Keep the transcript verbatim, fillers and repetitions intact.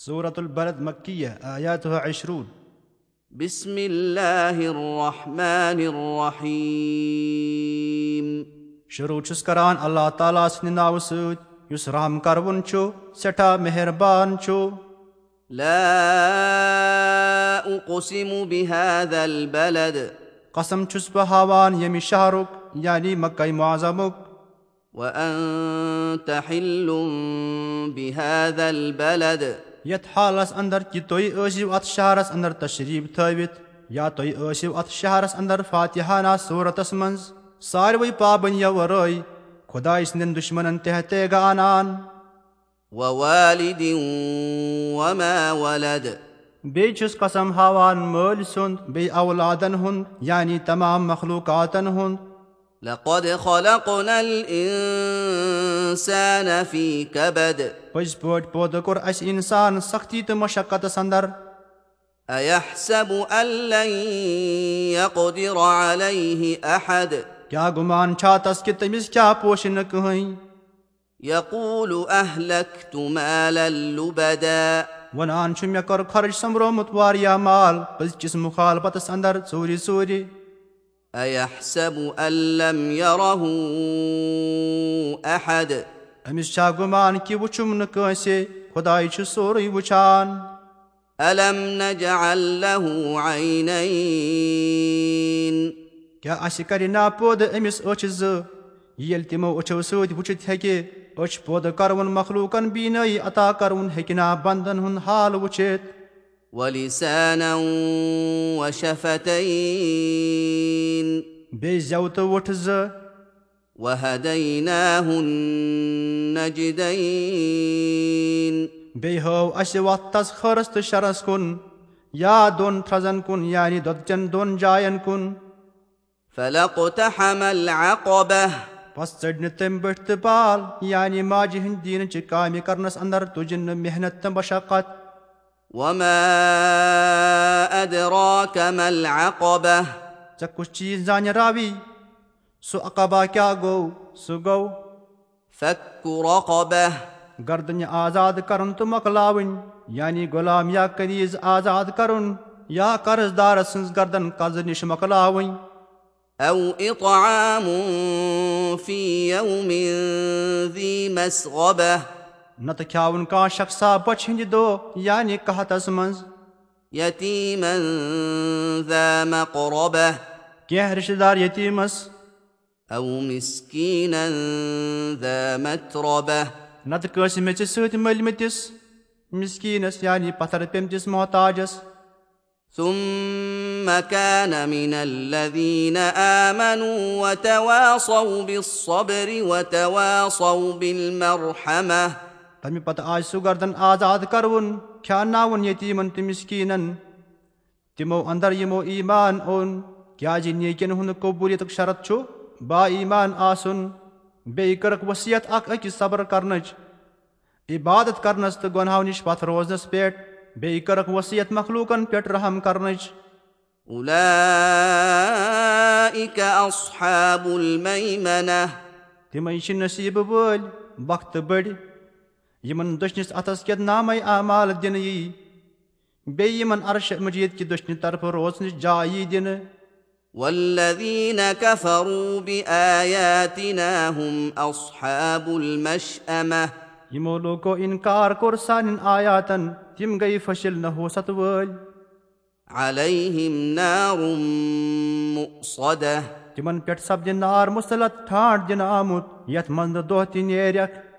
سورة البلد مکیہ، آیاتها عشرون۔ بسم اللہ الرحمن الرحیم۔ شروع چھُس کران اللہ تعالیٰ سٕنٛدِ ناوٕ سۭتۍ، یُس رحم کرون چھُ، سٮ۪ٹھاہ مہربان چھُ۔ لا اقسم بهذا البلد۔ قسم چھُس بہٕ ہاوان ییٚمہِ شہرُک، یعنی مکہ معظمُک۔ وأنت حل بهذا البلد۔ یتھ حالس اندر کہِ تُہۍ ٲسِو اتھ شہرس اندر تشریف تھٲوِتھ، یا تُہۍ ٲسِو اتھ شہرس اندر فاتحانہ صورتس منز، ساروٕے پابندیو ورٲے، خدایہِ سٕنٛدٮ۪ن دشمنن تحت تیغہ انان۔ ووالد وما ولد۔ بیٚیہِ چھُس قسم ہاوان مٲلۍ سُنٛد، بیٚیہِ اولادن ہُنٛد، یعنی تمام مخلوقاتن ہُنٛد۔ لقد خلقنا الإنسان في كبد۔ پٔزۍ پٲٹھۍ پٲدٕ کوٚر اسہِ انسان سختی تہٕ مشقتس اندر۔ أيحسب أن لن يقدر عليه أحد۔ کیٛاہ گُمان چھا تس کہِ تٔمِس کیٛاہ پوشہِ نہٕ کٕہٕنۍ؟ يقول أهلكت مالا لبدا۔ ونان چھُ، مےٚ کوٚر خرٕچ سۄمبرومُت واریاہ مال، پٔزۍ کِس مخالفتس اندر ژوٗرِ ژوٗرِ۔ أيحسب أن لم يره أحد۔ أمِس چھا گُمان کہِ وُچھُم نہٕ کٲنٛسہِ؟ خداے چھُ سورُے وُچھان۔ ألم نجعل له عينين۔ کیٛاہ اَسہِ کَرِ نا پٲدٕ أمِس أچھ زٕ؟ ییٚلہِ تِمو أچھو سۭتۍ وُچھِتھ ہیٚکہِ، أچھ پٲدٕ کَرون مخلوٗقن بینٲیی عطا کَرون ہیٚکہِ نا بندن ہُنٛد حال وُچھِتھ؟ ولسانا وشفتين۔ بیٚیہِ زٮ۪و تہٕ وُٹھ زٕ۔ وهديناه النجدين۔ بیٚیہِ ہٲو اَسہِ وَتھ تَس خٲرَس تہٕ شَرَس کُن، یا دۄن تھرٛزَن کُن، یعنی دۄدچَن دۄن جاین کُن۔ فلا اقتحم العقبة۔ پس ژٔج نہٕ تٔمۍ بٔٹھۍ تہٕ بال، یعنی ماجہِ ہٕنٛدِ دیٖنٕچہِ کامہِ کرنَس اندر تُجِن نہٕ محنت تہٕ مشقت۔ وما أدراك ما العقبة۔ ژےٚ کُس چیٖز زانہِ راوی؟ سُہ عقبہ کیٛاہ گوٚو؟ سُہ گوٚو فك رقبة۔ گردنہِ آزاد کرُن تہٕ مۄکلاوٕنۍ، یعنی غلام یا کنیز آزاد کرُن، یا قرض دارس سٕنٛز گردن قرضہٕ نِش مۄکلاوٕنۍ۔ أو إطعام في يوم ذي مسغبة۔ نتہٕ کھیاوُن کانٛہہ شخصا بۄچھِ ہٕنٛدِ دۄہ، یعنی قحطس منٛز۔ يتيما ذا مقربة۔ کینٛہہ رشتہٕ دار یتیٖمس۔ أو مسكينا ذا متربة۔ نتہٕ کٲنٛسہِ میٚژِ سۭتۍ مٔلۍ مٕتِس مسکیٖنس، یعنی پتھر پیٚمتِس محتاجس۔ ثم كان من الذين آمنوا وتواصوا بالصبر وتواصوا بالمرحمة۔ تمہِ پتہٕ آسہِ سُہ گردن آزاد کرُن، کھیاناوُن یتیٖمن تہٕ مسکیٖنن۔ تِمو اندر یِمو ایمان اوٚن، کیازِ نیکین ہُنٛد قبولیتُک شرط چھُ با ایمان آسُن۔ بیٚیہِ کٔرٕکھ وصیت اکھ أکِس صبر کرنٕچ، عبادت کرنس تہٕ گۄناہو نِش پتھ روزنس پٮ۪ٹھ۔ بیٚیہِ کٔرٕکھ وصیت مخلوقن پٮ۪ٹھ رحم کرنٕچ۔ أولئك أصحاب الميمنة۔ تِمے چھِ نصیٖبہٕ وٲلۍ، بخت بٔڑۍ، یِمن دٔچھنِس اتھس کٮ۪تھ نامے اعمال دِنہٕ یی۔ بیٚیہِ یِمن عرش مجید کہِ دٔچھنہِ طرفہٕ روزنٕچ جاے یی دِنہٕ۔ والذين كفروا بآياتنا هم أصحاب المشأمة۔ یِمو لوٗکو اِنکار کوٚر سانٮ۪ن آیاتن، تِم گٔیہِ فٔشِل نحوست وٲلۍ۔ عليهم نار مؤصدة۔ تِمن پٮ۪ٹھ سپدِ نار مُسلط، ٹھانڈ دِنہٕ آمُت، یتھ منٛز نہٕ دۄہ تہِ نیرٮ۪کھ۔